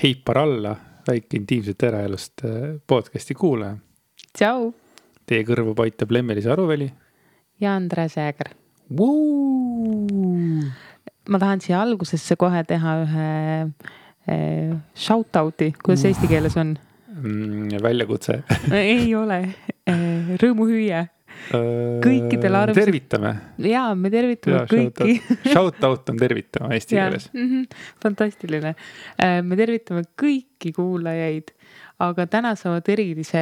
Heipar alla, väike intiimset eraelust podcasti kuulaja. Tšau! Teie kõrvu paitab Lemmelis Aruveli. Ja Andres Jääger. Woo! Ma tahan siia algusesse kohe teha ühe shoutouti, kuidas eesti keeles on? Väljakutse. Ei ole. Rõõmuhüüe. Kõikidel tervitame. Jaa, me tervitame kõiki. Shoutout on tervitama eesti keeles. Fantastiline. Me tervitame kõiki kuulajaid, aga täna saavad erilise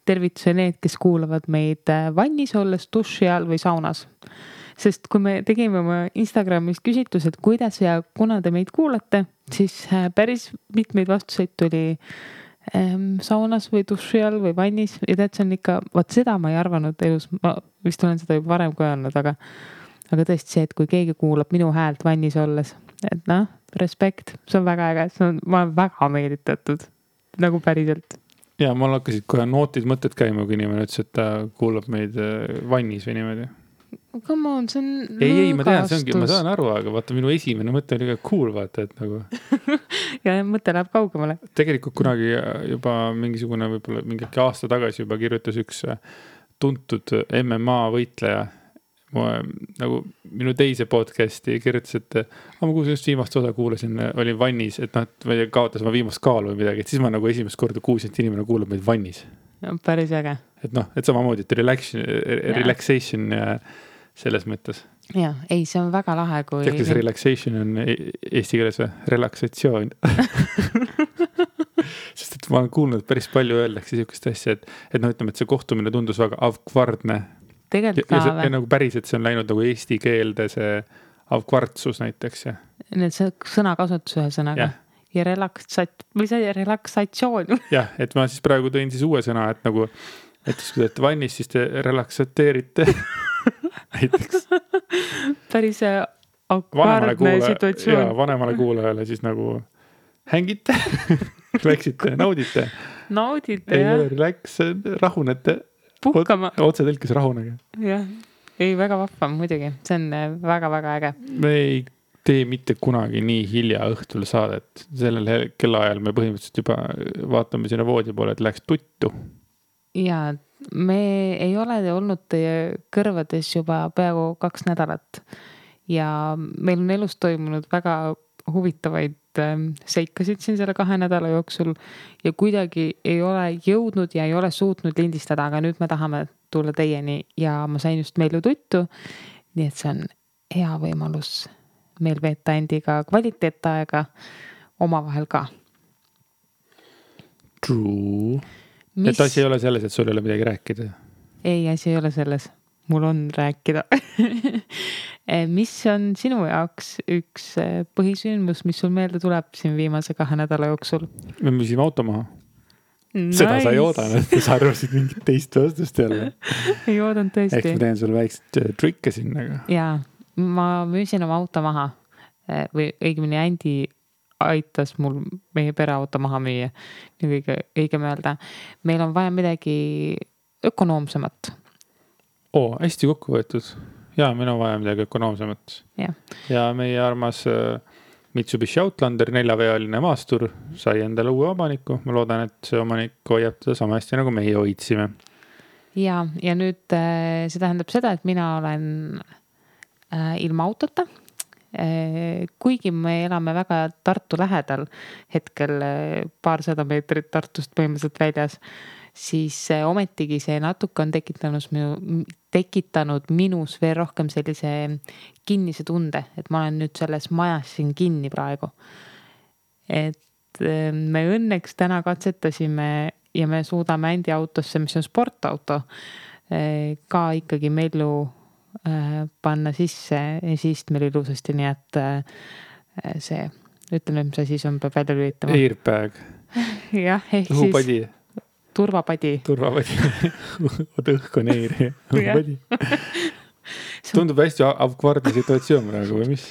tervituse need, kes kuulavad meid vannis olles, duši all või saunas. Sest kui me tegime oma Instagramis küsitlused, kuidas ja kuna te meid kuulate, siis päris mitmeid vastuseid tuli saunas või duši all või vannis ja tead, see on ikka, vaat seda ma ei arvanud elus, ma vist olen seda juba varem ka öelnud, aga tõesti see, et kui keegi kuulab minu häält vannis olles, et noh, respekt, see on väga äge, ma olen väga meelitatud, nagu päriselt. Ja mul hakkasid kohe nootid mõtted käima, kui inimene ütles, et ta kuulab meid vannis või niimoodi. Come on, see on ei, ma tean, see ongi, ma saan aru, aga vaata minu esimene mõte oli ka cool, vaata, et nagu ja mõte läheb kaugemale. Tegelikult kunagi juba mingisugune, võib-olla mingi aasta tagasi juba kirjutas üks tuntud MMA võitleja nagu minu teise podcasti kirjutas, et ma kuulsin just viimast osa kuulasin, olin vannis, et kaotas ma viimast kaalu või midagi, et siis ma nagu esimest korda kuulsin, et inimene kuulab meid vannis. Ja, päris äge. Et et samamoodi, et relaxation ja selles mõttes. Ja, ei, see on väga lahe, kui... Tead, kas relaxation on eesti keeles või? Relaksatsioon. Sest et ma olen kuulnud päris palju öeldakse sihukest asja, et ütleme, et see kohtumine tundus väga avkvardne. Tegelikult ka ja nagu päris, et see on läinud nagu eesti keelde see avkvardsus näiteks. Ja. Need sõnakasutus ühe sõnaga. Ja relaksatsioon. Jah, et ma siis praegu tõin siis uue sõna, et nagu, et kui te vannis, siis te relaksateerite. Näiteks. Päris avkvardne situatsioon. Ja vanemale kuulajale siis nagu hängite, läksite, naudite. Naudite, jah. Ei ole relax, rahunete. Puhkama. Otse tõlkes rahunege. Jah, ei väga vahva muidugi. See on väga-väga äge. Me ei tee mitte kunagi nii hilja õhtul saadet. Sellel kellaajal me põhimõtteliselt juba vaatame sinna voodi poole, et läks tuttu. Ja me ei ole olnud teie kõrvades juba peaaegu 2 nädalat. Ja meil on elus toimunud väga huvitavaid seikasid siin selle 2 nädala jooksul ja kuidagi ei ole jõudnud ja ei ole suutnud lindistada, aga nüüd me tahame tulla teieni ja ma sain just meilu tuttu, nii et see on hea võimalus meil veeta endiga kvaliteetaega omavahel ka. True. Et asi ei ole selles, et sul ei ole midagi rääkida? Ei, asi ei ole selles. Mul on rääkida. Mis on sinu jaoks üks põhisündmus, mis sul meelde tuleb siin viimase 2 nädala jooksul? Me müüsime auto maha. Nice. Seda sa ei oodanud, sa arvasid mingit teist vastust jälle. Ei oodanud tõesti. Eks ma teen sulle väikselt trikke sinna. Jaa, ma müüsin oma auto maha. Või õigemini Andi aitas mul meie pereauto maha müüa. Nii õigem öelda. Meil on vaja midagi ökonoomsemat. Hästi kokku võetud. Ja, meil on vaja midagi ökonoomsemat. Ja meie armas Mitsubishi Outlander 4-vealine maastur sai endale uue omaniku. Ma loodan, et see omanik hoiab teda sama hästi, nagu meie hoidsime. Ja nüüd see tähendab seda, et mina olen ilma autota. Kuigi me elame väga Tartu lähedal, hetkel 200 meetrit Tartust põhimõtteliselt väljas, siis ometigi see natuke on tekitanud minus veel rohkem sellise kinnise tunde, et ma olen nüüd selles majas siin kinni praegu. Et me õnneks täna katsetasime ja me suudame Andi autosse, mis on sportauto, ka ikkagi mellu panna sisse ja siis meil ilusasti, nii et see, ütleme, mis asi on, peab välja lülitama. Airbag. Jah, ehk õhupadi. Siis turvapadi. Oota, õhk on eiri. Õhupadi. Tundub hästi avkvardne situatsioon praegu või mis?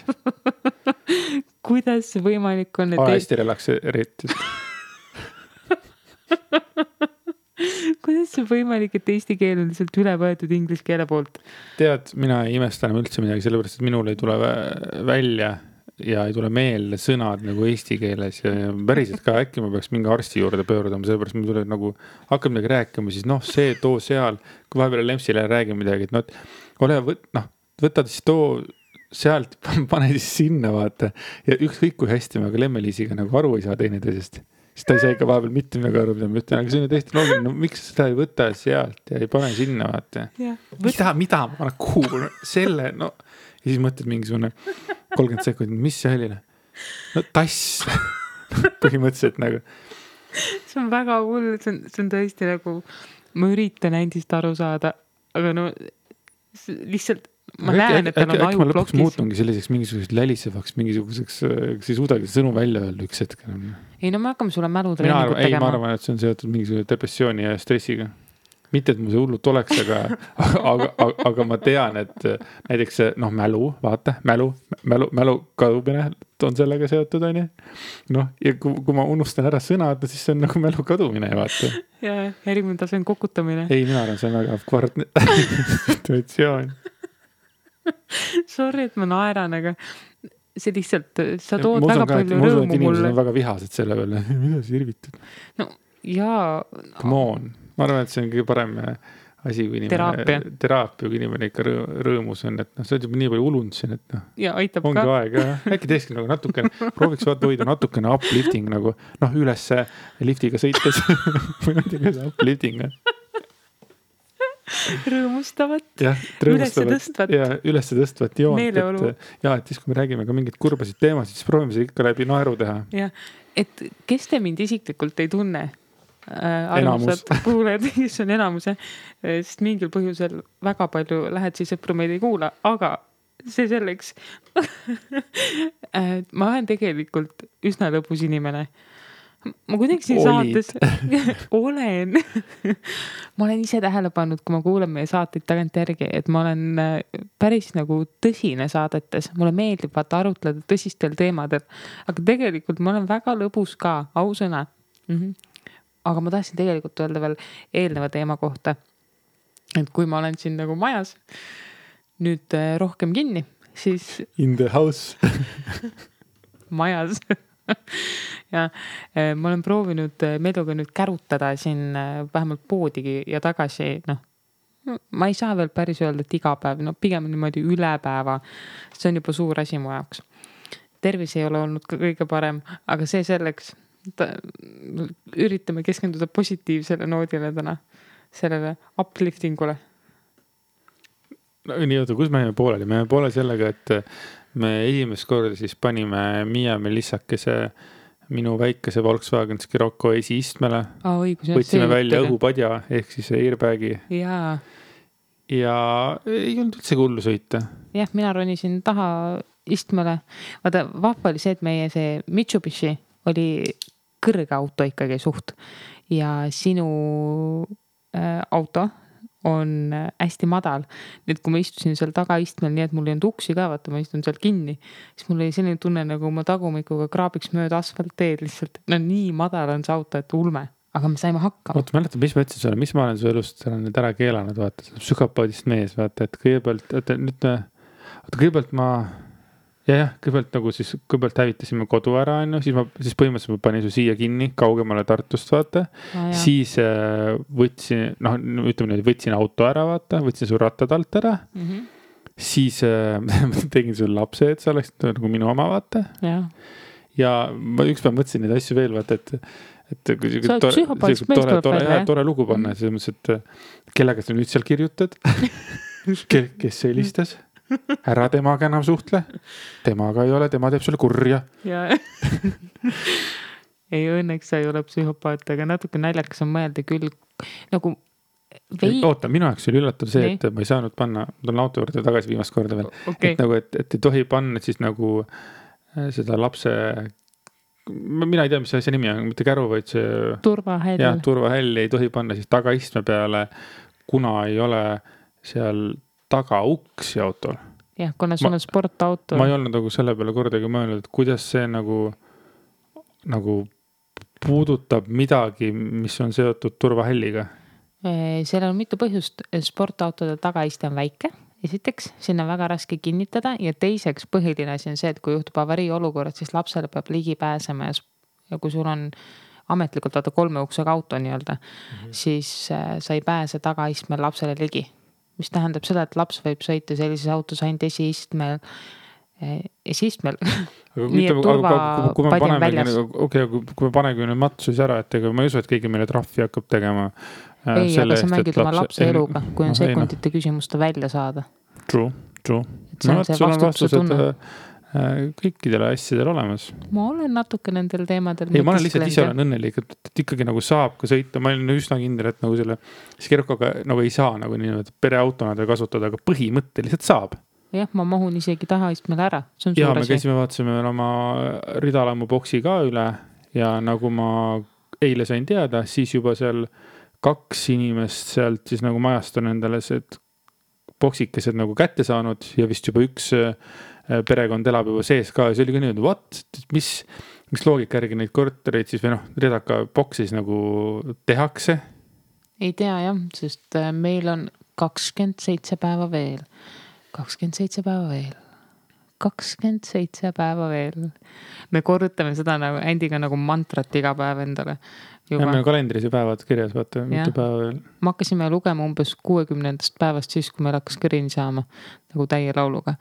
Kuidas see võimalik on? Hästi relakseeritud. Kuidas see võimalik, et eesti keel on lihtsalt üle võetud inglise keele poolt? Tead, mina ei imesta enam üldse midagi, sellepärast, et minul ei tule välja ja ei tule meelde sõnad nagu eesti keeles ja päriselt ka äkki ma peaks mingi arsti juurde pöördama, sellepärast ma tulen nagu hakkab midagi rääkima, siis noh, see too seal, kui vahepeal Lempsile räägin midagi, et noh, võtad siis too sealt, pane siis sinna vaata ja ükskõik kui hästi me ka Lemme-Liisiga nagu aru ei saa teineteisest, siis ta ei saa ikka vahepeal mitte midagi aru, mida ma ütlen, aga see on täiesti loogiline, no miks seda ei võta sealt ja ei pane sinna vaata. Mida ma panen kuhu, selle, no ja siis mõtled mingisugune 30 sekundit, mis see oli? No tass põhimõtteliselt nagu. See on väga hull, see on tõesti nagu, ma üritan endist aru saada, aga no lihtsalt ma näen, et tal on aju ma lõpuks plokis. muutungi selliseks mingisuguseks lälisevaks, mingisuguseks, kas ei suudagi sõnu välja öelda üks hetk. Ei no me hakkame sulle mälutreeningut tegema. Ei, ma arvan, et see on seotud mingisuguse depressiooni ja stressiga. Mitte, et mul see hullult oleks, aga ma tean, et näiteks noh, mälu, vaata, mälu kadumine on sellega seotud, on ju. Noh, ja kui ma unustan ära sõnad, siis see on nagu mälu kadumine, vaata. Ja järgmine tase on kokutamine. Ei, mina arvan, see on väga kvartne situatsioon. Sorry, et ma naeran, aga see lihtsalt, sa tood väga palju rõõmu mulle. Inimesed on väga vihased selle peale. Mida sa irvitad? No, jaa. Come on. Ma arvan, et see on kõige parem asi, kui inimene teraapia, kui inimene ikka rõõmus on, et noh, sa oled juba nii palju ulunud siin, et noh, ja aitab ongi ka. Aeg, äkki teekski nagu natukene, prooviks hoida natukene uplifting nagu, noh, üles liftiga sõites või ma ei tea, kuidas uplifting on. Rõõmustavat, üles tõstvat joont, meeleolu. et siis kui me räägime ka mingit kurbasid teemasid, siis proovime see ikka läbi naeru teha. Ja, et kes te mind isiklikult ei tunne? Armsad kuulajad, kes on enamuse, sest mingil põhjusel väga palju lähedsi sõpru meid ei kuula, aga see selleks. Ma olen tegelikult üsna lõbus inimene. Ma kuidagi siin saates olen. Ma olen ise tähele pannud, kui ma kuulen meie saateid tagant järgi, et ma olen päris nagu tõsine saadetes. Mulle meeldib vaata arutleda tõsistel teemadel, aga tegelikult ma olen väga lõbus ka, ausõna. Aga ma tahtsin tegelikult öelda veel eelneva teema kohta, et kui ma olen siin nagu majas nüüd rohkem kinni, siis in the house majas ja ma olen proovinud Meeluga nüüd kärutada siin vähemalt poodigi ja tagasi, noh, ma ei saa veel päris öelda, et iga päev, no pigem niimoodi üle päeva, see on juba suur asi mu jaoks. Tervis ei ole olnud ka kõige parem, aga see selleks üritame keskenduda positiivsele noodile täna, sellele upliftingule. No, nii oota, kus me jäime pooleli? Me jäime poole sellega, et me esimest korda siis panime Miia Melissakese minu väikese Volkswagen Scirocco esiistmele. Võtsime välja õhupadja ehk siis airbagi. Ja ei olnud üldse hullu sõita. Jah, mina ronisin taha istmele. Vaata, vahva oli see, et meie see Mitsubishi oli kõrge auto ikkagi suht ja sinu auto on hästi madal. Nüüd, kui ma istusin seal tagaistmel, nii et mul ei olnud uksi ka, vaata, ma istun seal kinni, siis mul oli selline tunne, nagu ma tagumikuga kraabiks mööda asfaltteed lihtsalt. No nii madal on see auto, et ulme, aga me saime hakkama. Oota, mäletan, mis ma ütlesin sulle, mis ma olen su elust nüüd ära keelanud, vaata, psühhopaadist mees, vaata, et kõigepealt ma kõigepealt nagu siis, kõigepealt hävitasime kodu ära, siis põhimõtteliselt ma panin su siia kinni, kaugemale Tartust, vaata. Siis võtsin, noh, ütleme nüüd, võtsin auto ära, vaata, võtsin su rattad alt ära. Siis tegin sulle lapse, et sa oleks nagu minu oma, vaata. Ja ma ükspäev mõtlesin neid asju veel, vaata, et tore lugu panna, selles mõttes, et kellega sa nüüd seal kirjutad, kes helistas. Ära temaga enam suhtle. Temaga ei ole, tema teeb sulle kurja. Ei, õnneks sa ei ole psühhopaat, aga natuke naljakas on mõelda küll. Nagu Oota, minu jaoks oli üllatav see, et ma ei saanud panna, ma tulen auto juurde tagasi viimast korda veel. Et nagu, et ei tohi panna siis nagu seda lapse, mina ei tea, mis see asja nimi on, mitte käru, vaid see turvahäll. Ja, turvahäll ei tohi panna siis tagaistme peale, kuna ei ole seal taga uksi autol. Jah, kuna sul on sportauto. Ma ei olnud nagu selle peale kordagi mõelnud, et kuidas see nagu puudutab midagi, mis on seotud turvahälliga. Seal on mitu põhjust. Sportautode tagaiste on väike, esiteks, sinna väga raske kinnitada ja teiseks põhiline asi on see, et kui juhtub avarii olukorrad, siis lapsele peab ligi pääsema ja kui sul on ametlikult vaata 3 uksega auto nii-öelda, siis sa ei pääse tagaistmel lapsele ligi. Mis tähendab seda, et laps võib sõita sellises autos ainult esiistmel. Nii et kui me panegi nüüd matsus ära, et ega ma ei usu, et keegi meile trahvi hakkab tegema. Ei, aga sa mängid oma lapse eluga, kui on sekundite küsimusta välja saada. True. See on see vastutuse tunne. Kõikidele asjadele olemas. Ma olen natuke nendel teemadel. Ei, ma olen lihtsalt ise olen õnnelik, et ikkagi nagu saab ka sõita. Ma olen üsna kindel, et nagu selle Skerokaga nagu ei saa nagu nii pereautona kasutada, aga põhimõtteliselt saab. Jah, ma mahun isegi tahaistmele ära. See on ja me käisime, vaatasime oma ridalamu boksi ka üle ja nagu ma eile sain teada, siis juba seal 2 inimest sealt siis nagu majast on endale see boksikesed nagu kätte saanud ja vist juba 1 perekond elab juba sees ka ja see oli ka nii, mis loogika järgi neid kortereid siis või redaka boksis nagu tehakse? Ei tea jah, sest meil on 27 päeva veel. 27 päeva veel. Me korrutame seda nagu Andiga nagu mantrat iga päev endale. Ja meil on kalendris ja päevad kirjas, vaata, mitu päeva veel. Me hakkasime lugema umbes 60. päevast siis, kui meil hakkas kõrini saama nagu täie lauluga.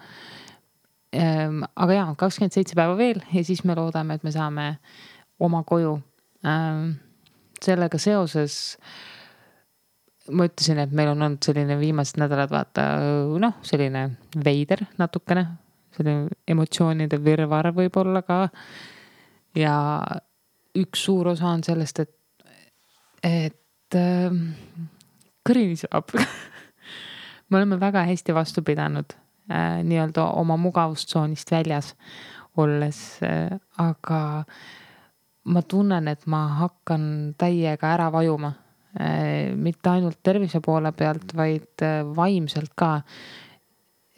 Aga jaa, 27 päeva veel ja siis me loodame, et me saame oma koju. Sellega seoses ma ütlesin, et meil on olnud selline viimased nädalad vaata, selline veider natukene, selline emotsioonide virvar võib olla ka ja üks suur osa on sellest, et kõrini saab. Me oleme väga hästi vastu pidanud nii-öelda oma mugavustsoonist väljas olles, aga ma tunnen, et ma hakkan täiega ära vajuma. Mitte ainult tervise poole pealt, vaid vaimselt ka.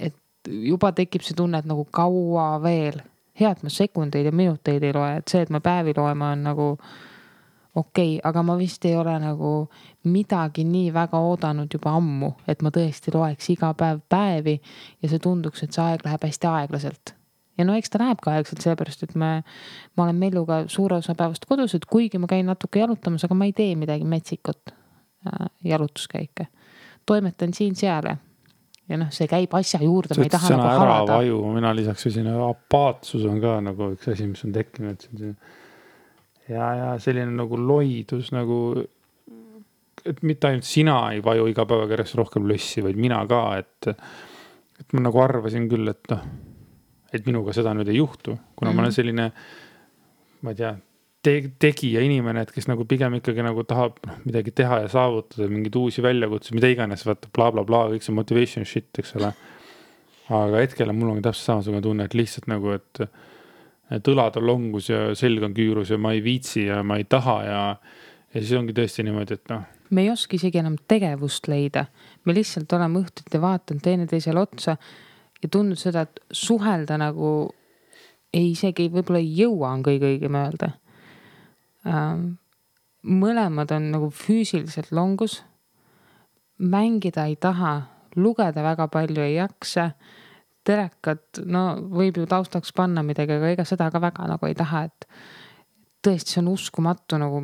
Et juba tekib see tunne, et nagu kaua veel. Hea, et ma sekundeid ja minuteid ei loe, et see, et ma päevi loema on nagu okei, aga ma vist ei ole nagu midagi nii väga oodanud juba ammu, et ma tõesti loeks iga päev päevi ja see tunduks, et see aeg läheb hästi aeglaselt. Ja eks ta läheb ka aegselt seepärast, et ma olen Melluga suure osa päevast kodus, et kuigi ma käin natuke jalutamas, aga ma ei tee midagi metsikut jalutuskäike. Toimetan siin seal ja see käib asja juurde, ma ei taha nagu harada. Vaju, mina lisaks apaatsus on ka nagu üks asi, mis on tekkinud. Ja selline nagu loidus nagu, et mitte ainult sina ei vaju iga päevaga järjest rohkem lössi, vaid mina ka, et ma nagu arvasin küll, et minuga seda nüüd ei juhtu, kuna ma olen selline, ma ei tea, tegija inimene, et kes nagu pigem ikkagi nagu tahab midagi teha ja saavutada, mingid uusi väljakutsusid, mida iganes, vaata bla bla bla, kõik see motivation shit, eks ole. Aga hetkel mul on täpselt samasugune tunne, et lihtsalt nagu, et õlad on longus ja selg on küürus ja ma ei viitsi ja ma ei taha ja siis ongi tõesti niimoodi, et Me ei oska isegi enam tegevust leida. Me lihtsalt oleme õhtuti vaatanud teineteisele otsa ja tundnud seda, et suhelda nagu isegi võib-olla ei jõua on kõige õigem öelda. Mõlemad on nagu füüsiliselt longus. Mängida ei taha, lugeda väga palju ei jaksa. Telekat, võib ju taustaks panna midagi, aga ega seda ka väga nagu ei taha, et tõesti see on uskumatu nagu.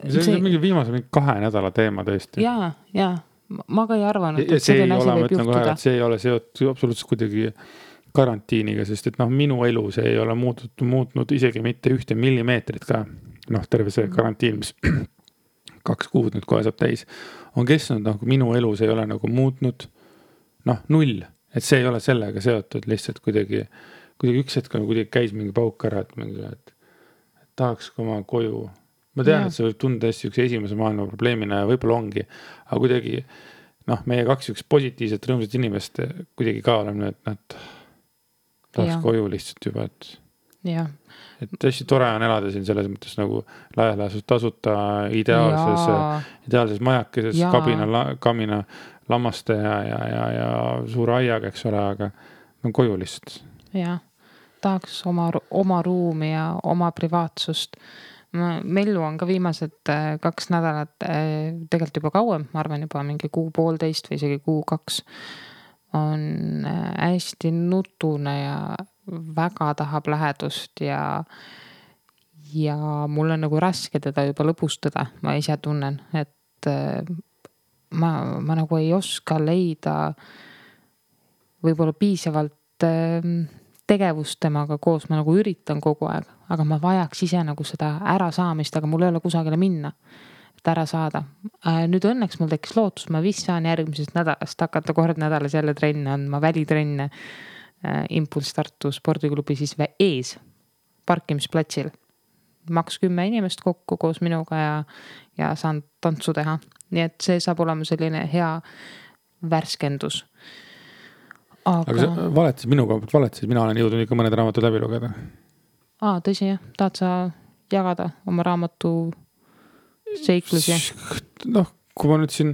See on mingi viimase 2 nädala teema tõesti. Jaa. Ma ka ei arvanud, et selline asi võib juhtuda. See ei ole seotud absoluutselt kuidagi karantiiniga, sest et minu elu see ei ole muutnud isegi mitte 1 millimeetrit ka. Terve see karantiin, mis 2 kuud nüüd kohe saab täis, on kestnud, minu elu see ei ole nagu muutnud 0, et see ei ole sellega seotud, lihtsalt kuidagi üks hetk kuidagi käis mingi pauk ära, et tahaks oma koju. Ma tean, et see võib tunda hästi üks esimese maailma probleemina ja võib-olla ongi, aga kuidagi, meie 2 üks positiivset rõõmsat inimest kuidagi ka oleme, et tahaks koju lihtsalt juba, et hästi tore on elada siin selles mõttes nagu laias tasuta ideaalses majakeses, kamina lammaste ja suure aiaga, eks ole, aga koju lihtsalt. Jah, tahaks oma ruumi ja oma privaatsust. Mellu on ka viimased 2 nädalat, tegelikult juba kauem, ma arvan juba mingi 1.5 või isegi 1.2 on hästi nutune ja väga tahab lähedust ja mul on nagu raske teda juba lõbustada, ma ise tunnen, et ma nagu ei oska leida võib-olla piisavalt tegevust temaga koos, ma nagu üritan kogu aeg, aga ma vajaks ise nagu seda ärasaamist, aga mul ei ole kusagile minna, et ära saada. Nüüd õnneks mul tekkis lootus, ma vist saan järgmisest nädalast hakata kord nädalas jälle trenne andma, välitrenne Impulss Tartu spordiklubi siis ees parkimisplatsil. Maks 10 inimest kokku koos minuga ja saan tantsu teha. Nii et see saab olema selline hea värskendus. Aga sa valetasid minu koha pealt, valetasid, mina olen jõudnud ikka mõned raamatud läbi lugeda. Tõsi jah, tahad sa jagada oma raamatu seiklusi? Noh, kui ma nüüd siin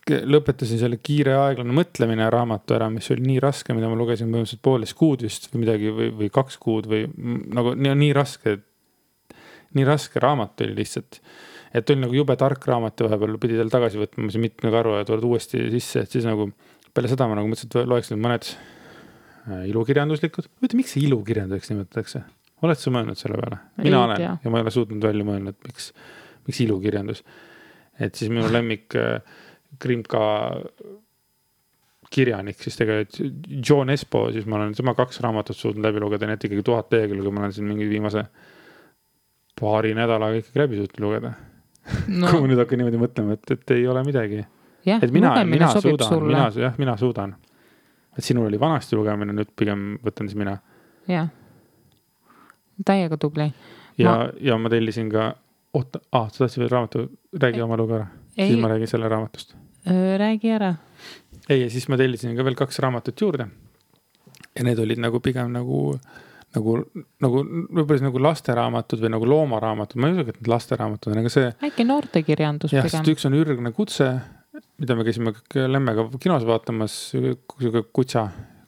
lõpetasin selle kiire aeglane mõtlemine raamatu ära, mis oli nii raske, mida ma lugesin põhimõtteliselt 1,5 kuud vist või midagi või 2 kuud või nagu nii raske raamat oli lihtsalt. Et oli nagu jube tark raamat ja vahepeal pidi tal tagasi võtma see mitme karu ja tuled uuesti sisse, et siis nagu peale seda ma nagu mõtlesin, et loeks nüüd mõned ilukirjanduslikud. Võtta, miks see ilukirjanduseks nimetatakse? Oled sa mõelnud selle peale? Mina olen ja ma ei ole suutnud välja mõelnud, et miks ilukirjandus. Et siis minu lemmik Krimka kirjanik, siis tegelikult John Espo, siis ma olen tema 2 raamatut suutnud läbi lugeda, nii et ikkagi 1000 lehekülge, ma olen siin mingi viimase paari nädalaga ikkagi läbi suutnud lugeda. No. Kui ma nüüd hakkan niimoodi mõtlema, et ei ole midagi. Jah, et mina suudan. Et sinul oli vanasti lugemine, nüüd pigem võtan siis mina. Jah, täiega tubli. Ja ma tellisin ka, sa tahtsid veel raamatu, räägi oma lugu ära. Siis ma räägin selle raamatust. Räägi ära. Ei, ja siis ma tellisin ka veel 2 raamatut juurde. Ja need olid nagu pigem nagu võib-olla nagu lasteraamatud või nagu loomaraamatud. Ma ei usu, et need lasteraamatud on, aga see... Äkki noortekirjandus pigem. Sest üks on ürgne kutse, mida me käisime Lemmega kinos vaatamas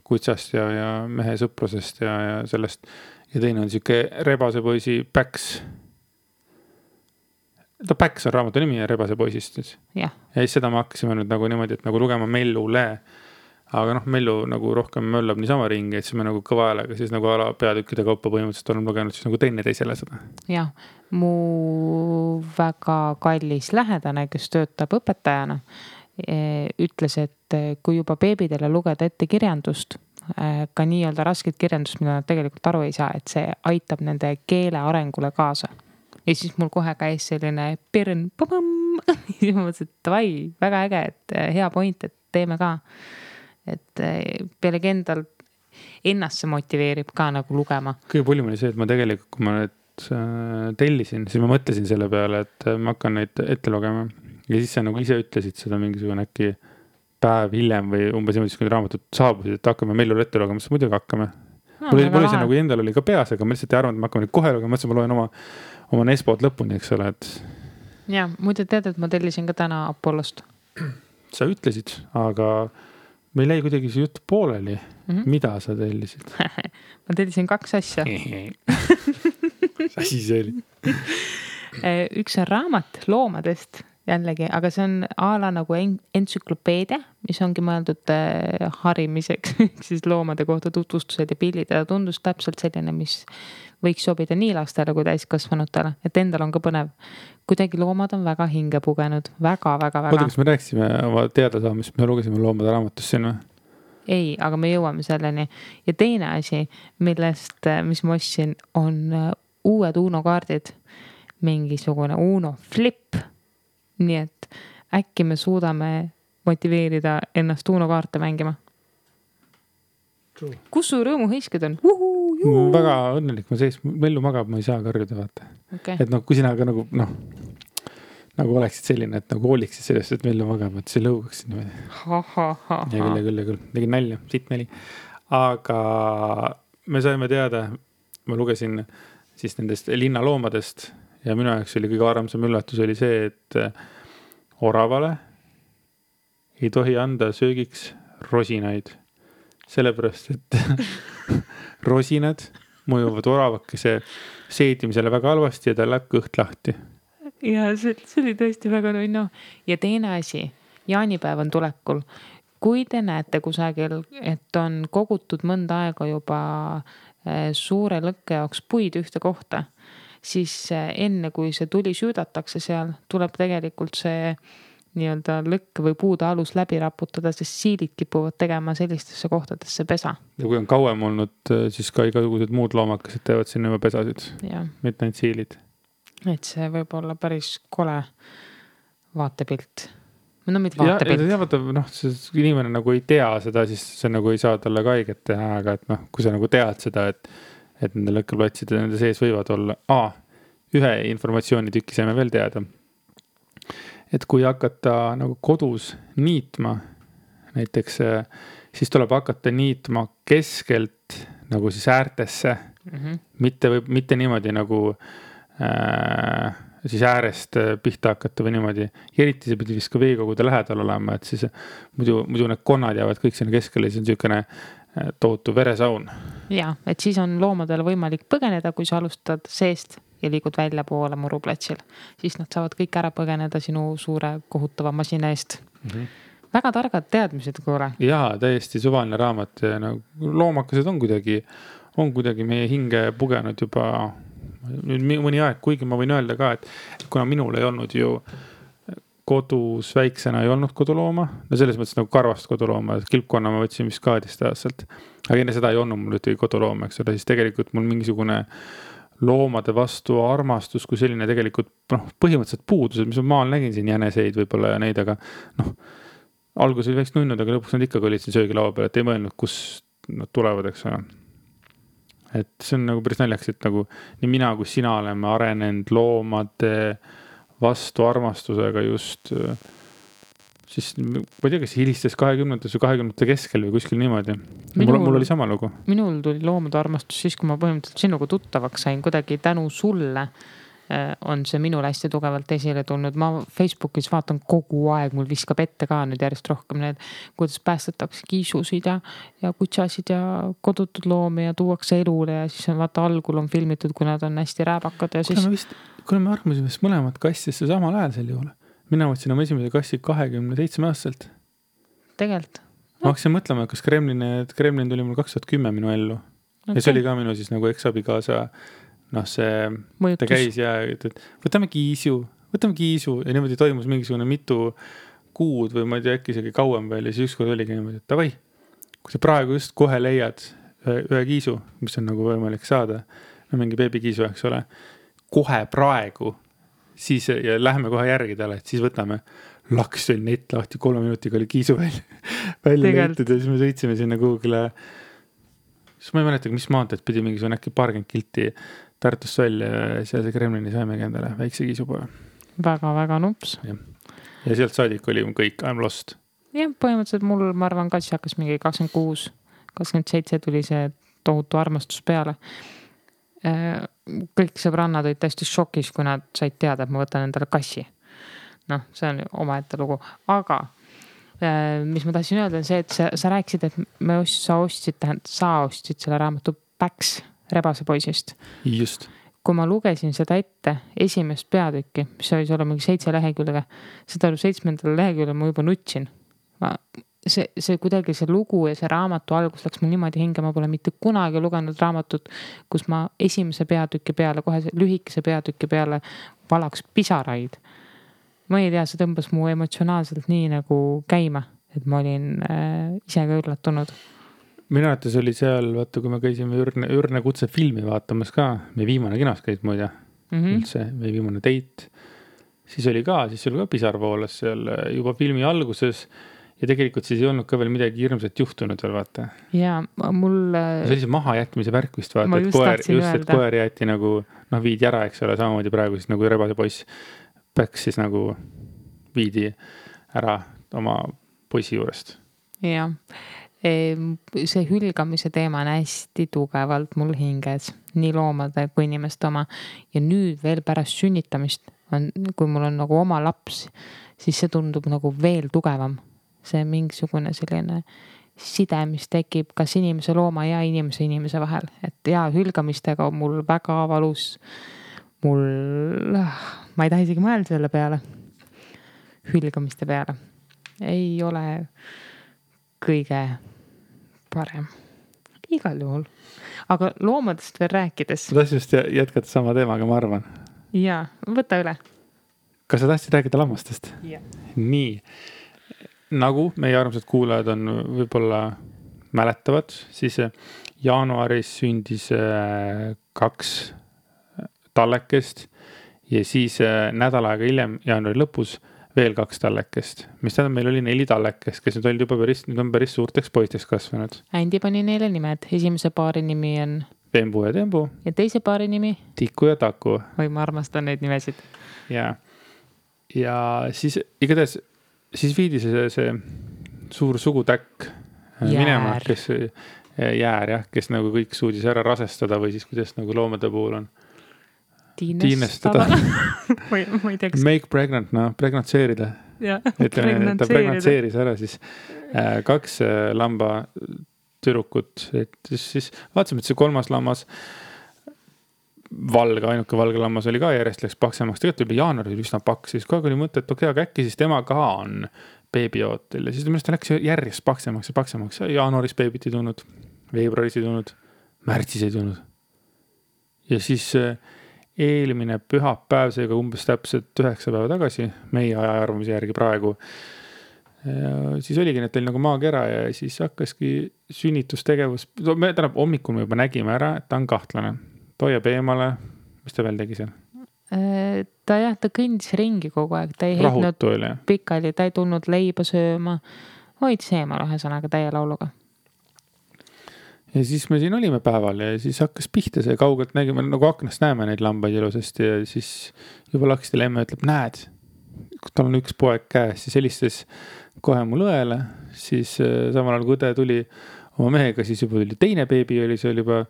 kutsast ja mehe sõprusest ja sellest. Ja teine on siuke Rebase poisi Päks. Päks on raamatu nimi ja Rebase poisist. Ja siis seda me hakkasime nüüd nagu niimoodi, et nagu lugema Mellule. Aga Mellu nagu rohkem möllab niisama ringi, et siis me nagu kõva häälega siis nagu ala peatükkide kaupa põhimõtteliselt olen lugenud siis nagu teine teisele seda. Jah, mu väga kallis lähedane, kes töötab õpetajana, ütles, et kui juba beebidele lugeda ette kirjandust, ka nii-öelda rasket kirjandust, mida nad tegelikult aru ei saa, et see aitab nende keele arengule kaasa. Ja siis mul kohe käis selline pirn, siis ma mõtlesin, et vai, väga äge, et hea point, et teeme ka. Et pealegi endal ennast see motiveerib ka nagu lugema. Kõige pulim oli see, et ma tegelikult, kui ma need tellisin, siis ma mõtlesin selle peale, et ma hakkan neid ette lugema. Ja siis sa nagu ise ütlesid seda mingisugune äkki päev hiljem või umbes niimoodi, kui raamatut saabusid, et hakkame Mellule ette lugema, siis muidugi hakkame. Mul oli see nagu endal oli ka peas, aga ma lihtsalt ei arvanud, et ma hakkame kohe lugema, mõtlesin, ma loen oma Nespot lõpuni, eks ole. Ja, muide tead, et ma tellisin ka täna Apollost. Sa ütlesid, aga meil jäi kuidagi see jutt pooleli. Mida sa tellisid? Ma tellisin 2 asja. Mis asi see oli? Üks on raamat loomadest jällegi, aga see on ala nagu entsüklopeedia, mis ongi mõeldud harimiseks, siis loomade kohta tutvustused ja pildid. Ja tundus täpselt selline, mis võiks sobida nii lastele kui täiskasvanutele, et endal on ka põnev. Kuidagi loomad on väga hinge pugenud, väga. Oota, kas me rääksime oma teadasaamist, me lugesime loomade raamatus sinna? Ei, aga me jõuame selleni. Ja teine asi, mis ma ostsin, on uued Uno kaardid, mingisugune Uno flip. Nii et äkki me suudame motiveerida ennast Uno kaarte mängima. Kus su rõõmuhõisked on? Väga õnnelik, Mellu magab, ma ei saa karjuda vaata. Okay. Et kui sina ka nagu oleksid selline, et nagu hooliksid sellest, et Mellu magab, et see lõugaksid niimoodi. Ja küll. Tegin nalja, siit nali. Aga me saime teada, ma lugesin siis nendest linnaloomadest ja minu jaoks oli kõige armsam üllatus oli see, et oravale ei tohi anda söögiks rosinaid. Sellepärast, et rosinad mõjuvad oravakese seedimisele väga halvasti ja tal läheb kõht lahti. Ja see oli tõesti väga nunnu. Ja teine asi, jaanipäev on tulekul. Kui te näete kusagil, et on kogutud mõnda aega juba suure lõkke jaoks puid ühte kohta, siis enne kui see tuli süüdatakse seal, tuleb tegelikult see nii-öelda lõkke või puude alus läbi raputada, sest siilid kipuvad tegema sellistesse kohtadesse pesa. Ja kui on kauem olnud, siis ka igasugused muud loomakesed teevad sinna juba pesasid. Mitte ainult siilid. Et see võib olla päris kole vaatepilt. No mitte vaatepilt. Ja vaata, inimene nagu ei tea seda, siis see nagu ei saa talle ka haiget teha, aga et kui sa nagu tead seda, et nende lõkkeplatside nende sees võivad olla. Ühe informatsiooni tükki saime veel teada. Et kui hakata nagu kodus niitma, näiteks, siis tuleb hakata niitma keskelt nagu siis äärtesse. Mitte niimoodi nagu siis äärest pihta hakata või niimoodi. Ja eriti see pidi vist ka veekogude lähedal olema, et siis muidu need konnad jäävad kõik sinna keskele, siis on niisugune tohutu veresaun. Ja, et siis on loomadel võimalik põgeneda, kui sa alustad seest ja liigud välja poole muruplatsil. Siis nad saavad kõik ära põgeneda sinu suure kohutava masina eest. Väga targad teadmised, kuule. Jaa, täiesti suvaline raamat. Loomakesed on kuidagi meie hinge pugenud juba nüüd mõni aeg, kuigi ma võin öelda ka, et kuna minul ei olnud ju kodus väiksena ei olnud kodulooma, no selles mõttes nagu karvast kodulooma, kilpkonna ma võtsin vist 12 aastalt, aga enne seda ei olnud mul ühtegi kodulooma, eks ole, siis tegelikult mul mingisugune loomade vastu armastus kui selline tegelikult põhimõtteliselt puudused, mis ma maal nägin siin jäneseid võib-olla ja neid, aga alguses oli väikest nunnud, aga lõpuks nad ikkagi olid siin söögilaua peal, et ei mõelnud, kus nad tulevad, eks ole. Et see on nagu päris naljaks, et nagu nii mina kui sina oleme arenenud loomade vastu armastusega just siis, ma ei tea, kas hilistes 20. või 20. keskel või kuskil niimoodi. Mul oli sama lugu. Minul tuli loomade armastus siis, kui ma põhimõtteliselt sinuga tuttavaks sain, kuidagi tänu sulle on see minul hästi tugevalt esile tulnud. Ma Facebookis vaatan kogu aeg, mul viskab ette ka nüüd järjest rohkem need, kuidas päästetakse kiisusid ja kutsasid ja kodutud loomi ja tuuakse elule ja siis on vaata algul on filmitud, kui nad on hästi rääbakad ja siis... Kuna me armasime vist mõlemad kassisse samal ajal sel juhul. Mina võtsin oma esimese kassi 27 aastaselt. Tegelikult. Ma hakkasin mõtlema, kas Kremlin tuli mul 2010 minu ellu. Ja see oli ka minu siis nagu eksabikaasa see mõjutus. Ta käis ja ütles, et võtame kiisu ja niimoodi toimus mingisugune mitu kuud või ma ei tea, äkki isegi kauem veel ja siis ükskord oligi niimoodi, et tavai, kui sa praegu just kohe leiad ühe kiisu, mis on nagu võimalik saada, mingi beebikiisu, eks ole, kohe praegu siis ja läheme kohe järgi talle, et siis võtame laks oli net lahti 3 minutiga oli kiisu välja leitud ja siis me sõitsime sinna Google'e siis ma ei mäleta, mis maanteed pidi mingisugune äkki paarkümmend kilti Tartust välja ja seal see Kremlini saimegi endale väikse kiisupoja. Väga nups. Ja sealt saadik oli kõik, I'm lost. Ja põhimõtteliselt mul, ma arvan, kassi hakkas mingi 26, 27 tuli see tohutu armastus peale. Kõik sõbrannad olid täiesti šokis, kui nad said teada, et ma võtan endale kassi. See on omaette lugu. Aga mis ma tahtsin öelda on see, et sa rääkisid, et sa ostsid selle raamatu Päks Rebase poisist. Just. Kui ma lugesin seda ette esimest peatükki, mis oli olla mingi 7 lehekülge, seda 7. lehekülge ma juba nutsin. See kuidagi see lugu ja see raamatu algus läks mul niimoodi hinge, ma pole mitte kunagi lugenud raamatut, kus ma esimese peatüki peale, kohe lühikese peatüki peale valaks pisaraid. Ma ei tea, see tõmbas mu emotsionaalselt nii nagu käima, et ma olin ise ka üllatunud. Minu arvates oli seal, vaata, kui me käisime Ürne kutse filmi vaatamas ka, meie viimane kinos käis muide, üldse, meie viimane date. Siis oli ka pisarvoolas seal juba filmi alguses ja tegelikult siis ei olnud ka veel midagi hirmsat juhtunud veel, vaata. Ja mul... See oli see maha jätmise värk vist, vaata, et koer jäeti nagu, viidi ära, eks ole, samamoodi praegu siis nagu Rebase poiss Päks siis nagu viidi ära oma poisi juurest. Jah. See hülgamise teema on hästi tugevalt mul hinges, nii loomade kui inimeste oma. Ja nüüd veel pärast sünnitamist, kui mul on nagu oma laps, siis see tundub nagu veel tugevam. See mingisugune selline side, mis tekib kas inimese looma ja inimese vahel. Et ja hülgamistega on mul väga valus. Ma ei taha isegi mõelda selle peale. Hülgamiste peale. Ei ole kõige parem. Igal juhul. Aga loomadest veel rääkides. Ma tahtsin just jätkata sama teemaga, ma arvan. Jaa, võta üle. Kas sa tahtsid rääkida lammastest? Jah. Nii. Nagu meie armsad kuulajad on võib-olla mäletavad, siis jaanuaris sündis 2 tallekest ja siis nädal aega hiljem, jaanuari lõpus, veel 2 tallekest. Mis tähendab, meil oli 4 tallekest, kes nüüd on päris suurteks poisteks kasvanud. Andi pani neile nimed. Esimese paari nimi on Vembu ja Tembu. Ja teise paari nimi? Tiku ja Taku. Või ma armastan neid nimesid. Ja siis igatahes siis viidi see suur sugutäkk minema, kes jäär, jah, kes nagu kõik suudis ära rasestada või siis kuidas nagu loomade puhul on. Tiinestada. ma ei tea, kas... Make pregnant, pregnantseerida. Ütleme, ta pregnantseeris ära siis 2 lamba tüdrukut. Et siis vaatasime, et see 3. lammas ainuke valge lammas oli ka järjest läks paksemaks. Tegelikult oli jaanuari üsna paks. Siis kogu aeg oli mõte, et okei, aga äkki siis tema ka on beebiootel. Ja siis ta läks järjest paksemaks. Jaanuaris beebit ei tulnud, veebruaris ei tulnud, märtsis ei tulnud. Ja siis eelmine pühapäev, seega umbes täpselt 9 päeva tagasi, meie ajaarvamise järgi praegu, siis oligi, et oli nagu maakera ja siis hakkaski sünnitustegevus. Tähendab, hommikul me juba nägime ära, et ta on kahtlane. Toiab eemale. Mis ta veel tegi seal? Ta kõndis ringi kogu aeg. Ta ei heitnud pikali, ta ei tulnud leiba sööma. Hoidis eemal ühesõnaga täie lauluga. Ja siis me siin olime päeval ja siis hakkas pihta see kaugelt nägime, nagu aknast näeme neid lambaid ilusasti ja siis juba lakstile emme ütleb, näed, tal on 1 poeg käes, siis helistas kohe mul õele, siis samal ajal kui õde tuli oma mehega, siis juba tuli teine beebi, see oli juba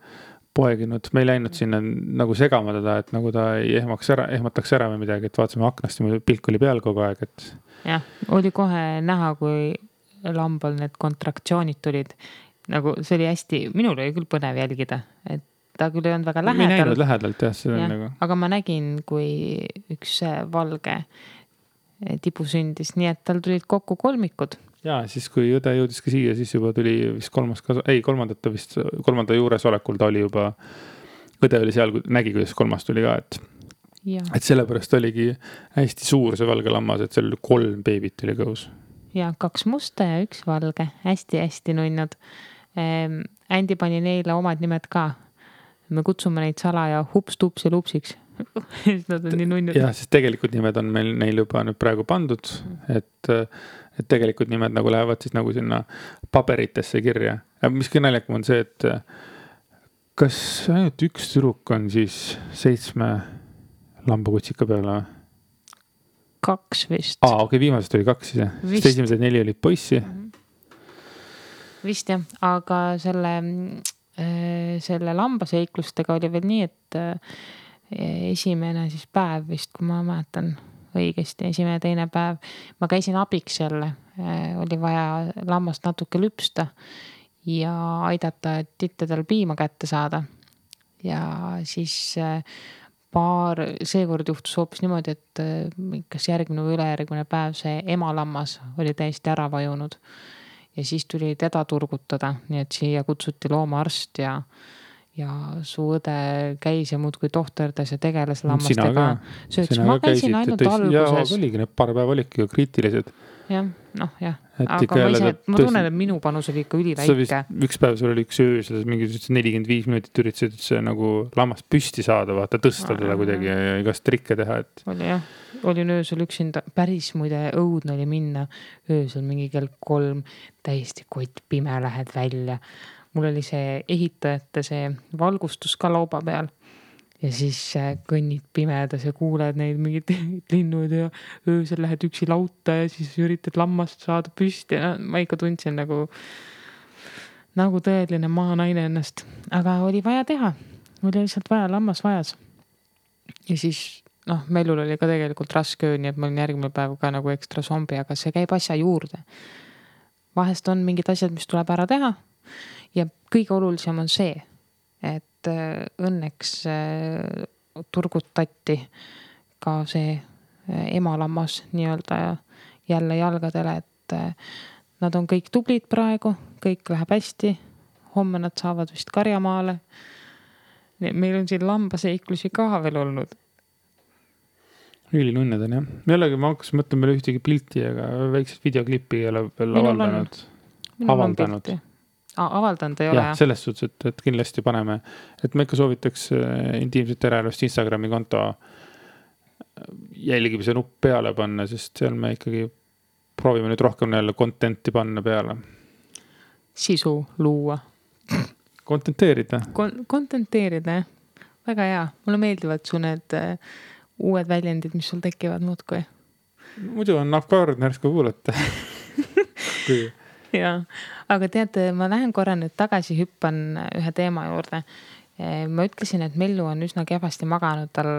poeginud, me ei läinud sinna nagu segama teda, et nagu ta ei ehmataks ära või midagi, et vaatasime aknast ja pilk oli peal kogu aeg, et... Jah, oli kohe näha, kui lambal need kontraktsioonid tulid. Nagu see oli hästi, minul oli küll põnev jälgida, et ta küll ei olnud väga lähedal. Me ei näinud lähedalt, jah. See nagu... Aga ma nägin, kui üks valge tibu sündis, nii et tal tulid kokku 3. Ja siis kui õde jõudis ka siia, siis juba tuli vist 3. juures olekul ta oli juba, õde oli seal, nägi, kuidas 3. tuli ka, et sellepärast oligi hästi suur see valge lammas, et seal 3 beebit oli kõhus. Ja 2 musta ja 1 valge, hästi nunnud. Andi pani neile omad nimed ka. Me kutsume neid salaja hups, tups ja lupsiks. Nad on nii nunnud. Ja, sest tegelikult nimed on neil juba nüüd praegu pandud, et tegelikult nimed nagu lähevad siis nagu sinna paberitesse kirja. Mis kõige naljakam on see, et kas ainult 1 tüdruk on siis 7 lambakutsika peale? 2 vist. Okei, viimasest oli 2 siis, jah. Esimesed 4 olid poissi. Vist jah, aga selle lambaseiklustega oli veel nii, et esimene siis päev vist, kui ma mäletan õigesti, esimene, teine päev, ma käisin abiks jälle, oli vaja lammast natuke lüpsta ja aidata, et tittedel piima kätte saada. Ja siis seekord juhtus hoopis niimoodi, et kas järgmine või ülejärgmine päev see emalammas oli täiesti ära vajunud. Ja siis tuli teda turgutada, nii et siia kutsuti loomaarst ja su õde käis ja muudkui tohterdas ja tegeles lammastega. Ma käisin ainult alguses. Ja oligi, need paar päeva olidki kriitilised. Jah, jah. Aga ma tunnen, et minu panus oli ikka üliväike. Üks päev sul oli üks öö, selles mingi 45 minutit üritasid see nagu lammast püsti saada, vaata tõsta teda kuidagi ja igast trikke teha. Oli jah, olin öösel üksinda, päris muide õudne oli minna öösel mingi kell 3, täiesti kott pime, lähed välja. Mul oli see ehitajate see valgustus ka lauba peal. Ja siis kõnnid pimedas ja kuuled neid mingid linnud ja öösel lähed üksi lauta ja siis üritad lammast saada püsti. Ma ikka tundsin nagu tõeline maanaine ennast. Aga oli vaja teha. Oli lihtsalt vaja, lammas vajas. Ja siis, Mellul oli ka tegelikult raske öö, nii et ma olin järgmine päev ka nagu ekstra zombi, aga see käib asja juurde. vahest on mingid asjad, mis tuleb ära teha ja kõige olulisem on see, et õnneks turgutati ka see emalammas nii-öelda jälle jalgadele, et nad on kõik tublid praegu, kõik läheb hästi, homme nad saavad vist karjamaale. Meil on siin lambaseiklusi ka veel olnud. Ülinunned on jah. Jällegi ma hakkas mõtlema veel ühtegi pilti, aga väiksed videoklippi ei ole veel avaldanud. Avaldanud ei ole. Ja, selles suhtes, et kindlasti paneme. Et me ikka soovitaks intiimset eraelust Instagrami konto jälgimise nupp peale panna, sest seal me ikkagi proovime nüüd rohkem jälle contenti panna peale. Sisu luua. Kontenteerida. Kontenteerida, jah. Väga hea. Mulle meeldivad su need uued väljendid, mis sul tekivad muudkui. Muidu on nahkard närsku kuulata. Ja, aga teate, ma lähen korra nüüd tagasi, hüppan ühe teema juurde. Ma ütlesin, et Mellu on üsna kehvasti maganud, tal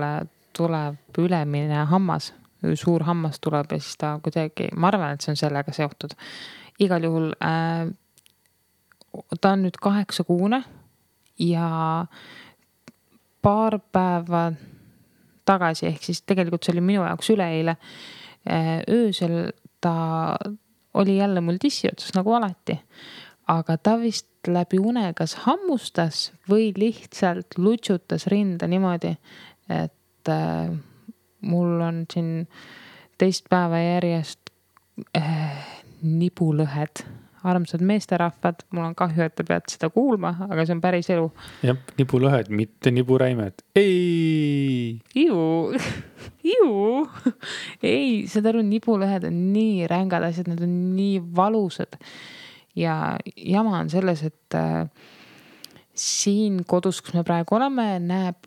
tuleb ülemine hammas, suur hammas tuleb ja siis ta kuidagi, ma arvan, et see on sellega seotud. Igal juhul ta on nüüd 8 kuune ja paar päeva tagasi, ehk siis tegelikult see oli minu jaoks üleeile, öösel ta oli jälle mul tissi otsas nagu alati, aga ta vist läbi une kas hammustas või lihtsalt lutsutas rinda niimoodi, et mul on siin teist päeva järjest nibulõhed. Armsad meesterahvad, mul on kahju, et te peate seda kuulma, aga see on päris elu. Jah, nibulõhed, mitte niburäimed. Ei! Iu! Ei, seda aru, nibulõhed on nii rängad asjad, need on nii valusad. Ja jama on selles, et siin kodus, kus me praegu oleme, näeb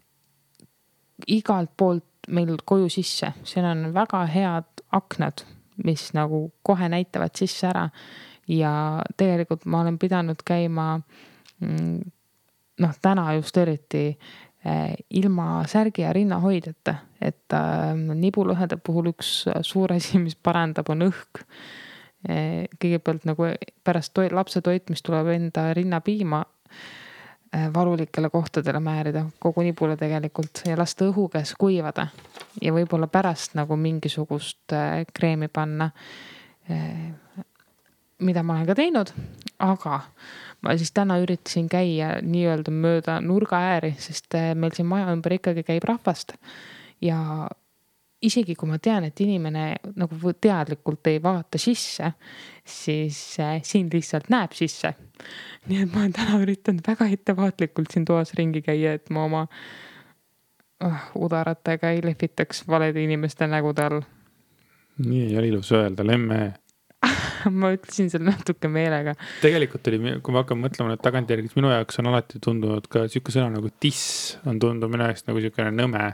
igalt poolt meil koju sisse. Siin on väga head aknad, mis nagu kohe näitavad sisse ära. Ja tegelikult ma olen pidanud käima täna just eriti ilma särgi ja rinnahoidjata, et nibulõhede puhul üks suur asi, mis parandab, on õhk. Kõigepealt nagu pärast lapse toitmist tuleb enda rinnapiima valulikele kohtadele määrida, kogu nibule tegelikult ja lasta õhu käes kuivada ja võib-olla pärast nagu mingisugust kreemi panna, mida ma olen ka teinud, aga ma siis täna üritasin käia nii-öelda mööda nurga ääri, sest meil siin maja ümber ikkagi käib rahvast ja isegi kui ma tean, et inimene nagu teadlikult ei vaata sisse, siis siin lihtsalt näeb sisse. Nii et ma olen täna üritanud väga ettevaatlikult siin toas ringi käia, et ma oma udaratega ei lehvitaks valede inimeste nägude all. Nii ei ole ilus öelda, lemme. Ma ütlesin seal natuke meelega. Tegelikult oli, kui ma hakkan mõtlema nüüd tagantjärgis, minu jaoks on alati tundunud ka siuke sõna nagu tiss on tundunud minu jaoks nagu siukene nõme.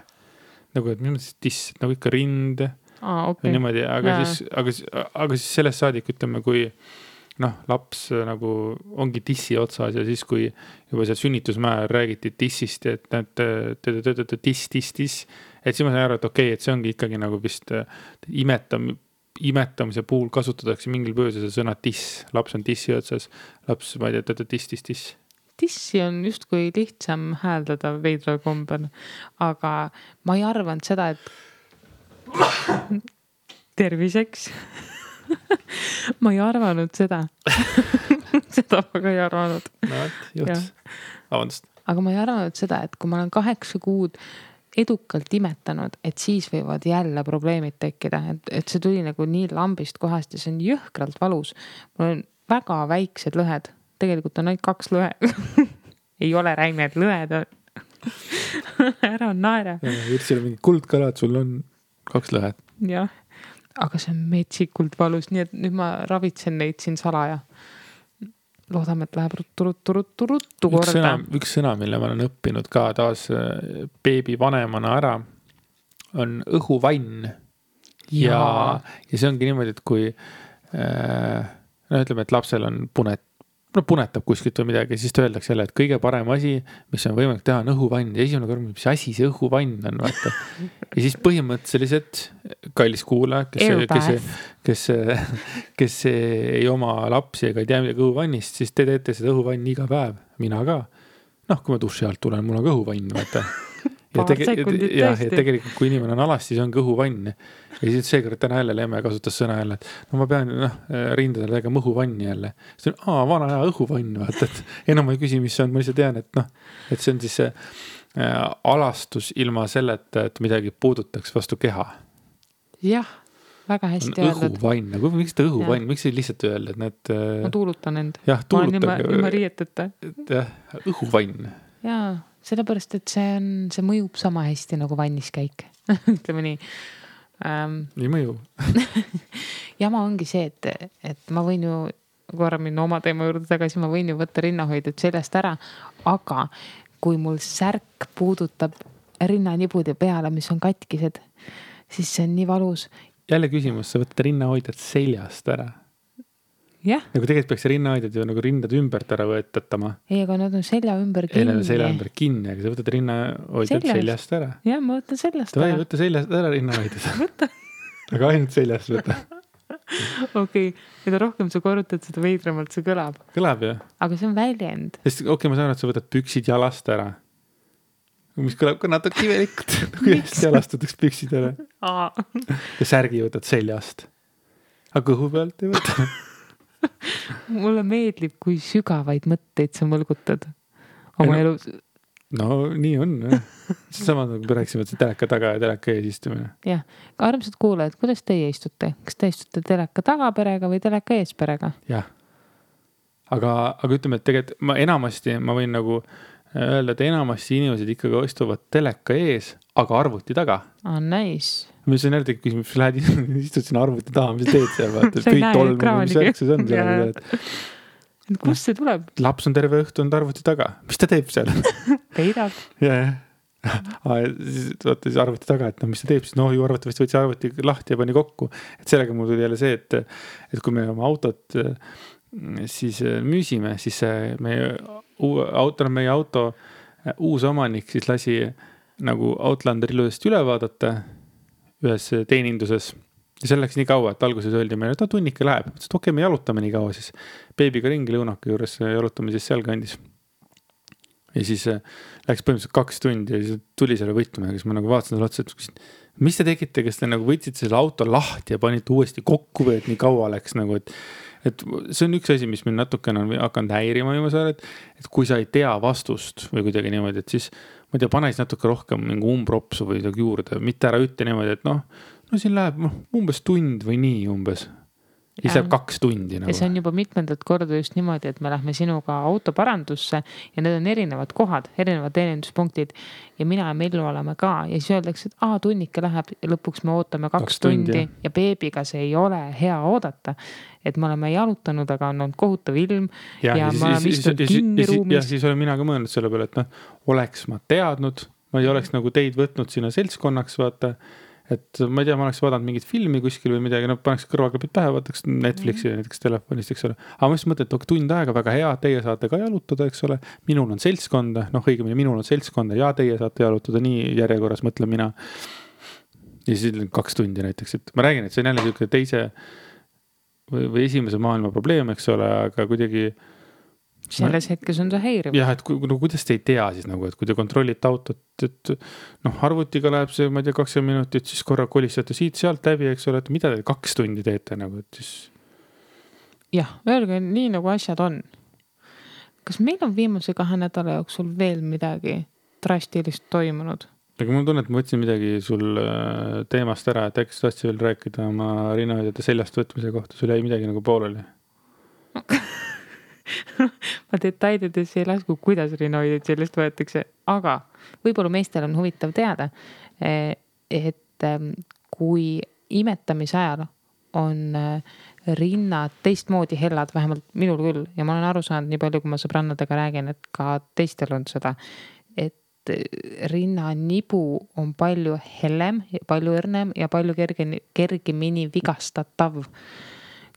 Nagu, et minu mõttes tiss, nagu ikka rind. Okay. Niimoodi, aga siis sellest saadik ütleme, kui laps nagu ongi tissi otsas ja siis, kui juba seal sünnitusmäär räägiti tissist, et tiss, et siis ma sain aru, et okei, et see ongi ikkagi nagu vist imetamise puhul kasutatakse mingil põhjusel see sõna tiss. Laps on tissi otsas, laps, ma ei tea, tiss. Tissi on just kui lihtsam hääldada veidral kombel, aga ma ei arvanud seda, et terviseks. Ma ei arvanud seda. Seda ma ka ei arvanud. No, just. Avandust. Aga ma ei arvanud seda, et kui ma olen 8 kuud edukalt imetanud, et siis võivad jälle probleemid tekkida, et see tuli nagu nii lambist kohast ja see on jõhkralt valus. Mul on väga väiksed lõhed. Tegelikult on ainult 2 lõhe. Ei ole räimed lõhed. Ära naera. Virsil on mingi kuldkalad, sul on 2 lõhed. Jah, aga see on metsikult valus, nii et nüüd ma ravitsen neid siin salaja. Loodame, et läheb ruttu korda. Üks sõna, mille ma olen õppinud ka taas beebi vanemana ära, on õhuvann. Ja see ongi niimoodi, et kui ütleme, et lapsel on no punetab kuskilt või midagi, siis ta öeldakse jälle, et kõige parem asi, mis on võimalik teha, on õhuvann. Ja esimene kord, mis asi see õhuvann on, vaata. Ja siis põhimõtteliselt kallis kuulaja, kes ei oma lapsi ega ei tea midagi õhuvannist, siis te teete seda õhuvanni iga päev. Mina ka. Noh, kui ma duši alt tulen, mul on ka õhuvann, vaata. Ja tegelikult, kui inimene on alas, siis on kõhuvann. Ja siis seekord täna jälle Lemme kasutas sõna jälle, et no ma pean rindadele tegema õhuvanni jälle. See on, vana hea õhuvann, vaata, et enam ma ei küsi, mis see on, ma lihtsalt tean, et see on siis see alastus ilma selleta, et midagi puudutaks vastu keha. Jah, väga hästi öeldud. Õhuvann, miks ta õhuvann, miks ei lihtsalt öelda, et need... Ma tuulutan end. Jah, tuulutan. Ma olen ilma riieteta. Jah, õhuvann. Jaa. Sellepärast, et see mõjub sama hästi nagu vanniskäik. Ütleme nii. Nii mõju. Jama ongi see, et ma võin ju korra minna oma teema juurde tagasi, ma võin ju võtta rinnahoidjad sellest ära, aga kui mul särk puudutab rinnanibude peale, mis on katkised, siis see on nii valus. Jälle küsimus, sa võtad rinnahoidjad seljast ära. Jah. Nagu tegelikult peaks rinnahoidjad ju nagu rindad ümbert ära võetatama. Ei, aga nad on selja ümber kinni. Ei, nad on selja ümber kinni, aga sa võtad rinnahoidjad seljast ära. Jah, ma võtan seljast ära. Võtta seljast ära rinnahoidjad. Võtta. Aga ainult seljast võtta. Okei, mida rohkem sa korrutad, seda veidramalt see kõlab. Kõlab, jah. Aga see on väljend. Sest ma saan, et sa võtad püksid jalast ära. Mis kõlab ka natuke imelikult. Kuidas jalastatakse püksid ära. Ja särgi võtad seljast. Aga kõhu pealt ei võta. Mulle meeldib, kui sügavaid mõtteid sa mõlgutad oma elus. No nii on. Sama nagu rääksime, et see teleka taga ja teleka ees istumine. Jah, armsad kuulajad, kuidas teie istute? Kas te istute teleka taga perega või teleka ees perega? Jah. Aga ütleme, et tegelikult ma võin nagu öelda, et enamasti inimesed ikkagi istuvad teleka ees, aga arvuti taga. Nice. Mis on jälle küsimus, mis lähed istud sinna arvuti taha, mis teed seal, vaata, kõik tolmu, mis järgses on seal. Kust see tuleb? Laps on terve õhtu on arvuti taga. Mis ta teeb seal? Peidab. Jah. Siis arvuti taga, et mis ta teeb, siis ju arvatavasti võtsi arvuti lahti ja pani kokku. Et sellega mul tuli jälle see, et kui me oma autot siis müüsime, siis meie auto uus omanik siis lasi nagu Outlander ilusasti üle vaadata ühes teeninduses. Ja see läks nii kaua, et alguses öeldi meile, et tunnike läheb. Mõtlesin, et okei, me jalutame nii kaua siis. Beebiga ringi lõunake juures jalutame siis seal kandis. Ja siis läks põhimõtteliselt 2 tundi ja siis tuli selle võtme, kes ma nagu vaatasin selle otsa, et mis te tegite, kes te nagu võtsite selle auto lahti ja panite uuesti kokku või et nii kaua läks nagu, et see on üks asi, mis meil natukene on hakanud häirima viimasel, et kui sa ei tea vastust või kuidagi niimoodi, et siis ma ei tea, pane siis natuke rohkem mingi umbropsu või juurde, mitte ära ütle niimoodi, et no siin läheb umbes tund või nii umbes. Ja see läheb 2 tundi. Nagu. Ja see on juba mitmendat korda just niimoodi, et me lähme sinuga autoparandusse ja need on erinevad kohad, erinevad teeninduspunktid ja mina ja Mellu oleme ka ja siis öeldakse, et tunnike läheb ja lõpuks me ootame 2 tundi ja beebiga see ei ole hea oodata. Et me oleme jalutanud, aga on olnud kohutav ilm ja ma olen istunud kinni ruumis. Ja siis olen mina ka mõelnud selle peale, et oleks ma teadnud, ma ei oleks nagu teid võtnud sinna seltskonnaks, vaata. Et ma ei tea, ma oleks vaadanud mingit filmi kuskil või midagi, paneks kõrvaklapid pähe, vaataks Netflixi näiteks telefonist, eks ole. Aga ma just mõtlen, et tund aega väga hea, teie saate ka jalutada, eks ole. Minul on seltskonda, õigemini minul on seltskonda ja teie saate jalutada nii järjekorras, mõtlen mina. Ja siis 2 tundi näiteks, et ma räägin, et see on jälle selline teise või esimese maailma probleem, eks ole, aga kuidagi selles hetkes on see häiriv. Jah, et kuidas te ei tea siis nagu, et kui te kontrollite autot, et arvutiga läheb see, ma ei tea, 20 minutit, siis korra kolistate siit sealt läbi, eks ole, et mida te 2 tundi teete nagu, et siis... Jah, öelge nii nagu asjad on. Kas meil on viimase 2 nädala jooksul veel midagi drastilist toimunud? Aga mul tunne, et ma võtsin midagi sul teemast ära, et äkki sa tahtsid veel rääkida oma rinnahoidjate seljast võtmise kohta, sul jäi midagi nagu pooleli. Ma detailides ei lasku, kuidas rinnahoidjad sellest võetakse, aga võib-olla meestel on huvitav teada, et kui imetamise ajal on rinnad teistmoodi hellad, vähemalt minul küll, ja ma olen aru saanud nii palju, kui ma sõbrannadega räägin, et ka teistel on seda, et rinnanibu on palju hellem, palju õrnem ja palju kergemini vigastatav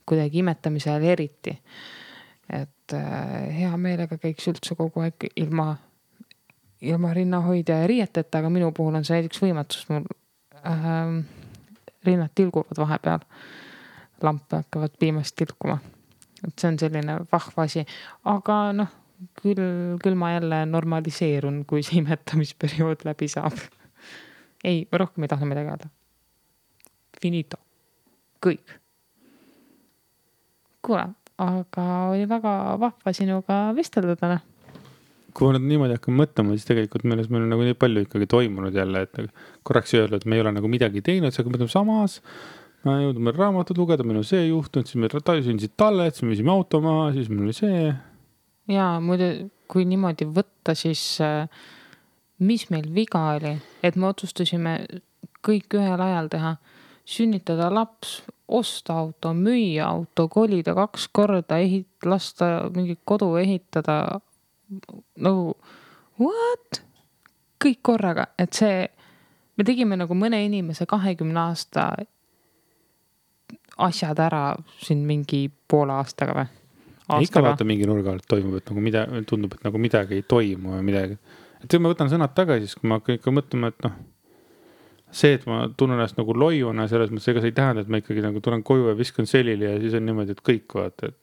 kuidagi imetamise ajal eriti. Et hea meelega käiks üldse kogu aeg ilma rinnahoidja ja riieteta, aga minu puhul on see näiteks võimatus, mul rinnad tilguvad vahepeal, lampe hakkavad piimast tilkuma. Et see on selline vahva asi, aga noh, küll ma jälle normaliseerun, kui see imetamisperiood läbi saab. Ei, rohkem ei taha midagi öelda. Finito. Kõik. Kuule, aga oli väga vahva sinuga vestelda täna. Kui ma nüüd niimoodi hakkan mõtlema, siis tegelikult meil on nagu nii palju ikkagi toimunud jälle, et korraks öelda, et me ei ole nagu midagi teinud, siis hakkame mõtlema samas, ma jõudnud meil raamatut lugeda, meil on see juhtunud, siis meil sündisid talled, siis me viisime auto maha, siis meil oli see. Jaa, muidu kui niimoodi võtta, siis mis meil viga oli, et me otsustasime kõik ühel ajal teha, sünnitada laps, osta auto, müüa auto, kolida 2 korda, lasta mingi kodu ehitada, nagu what? Kõik korraga, et see, me tegime nagu mõne inimese 20 aasta asjad ära siin mingi poole aastaga või? Ikka vaata mingi nurga alt toimub, et nagu tundub, et nagu midagi ei toimu või midagi. Et kui ma võtan sõnad tagasi, siis kui ma ikka mõtlema, et noh, see, et ma tunnen ennast nagu loiuna selles mõttes, ega see ei tähenda, et ma ikkagi nagu tulen koju ja viskan selili ja siis on niimoodi, et kõik vaata, et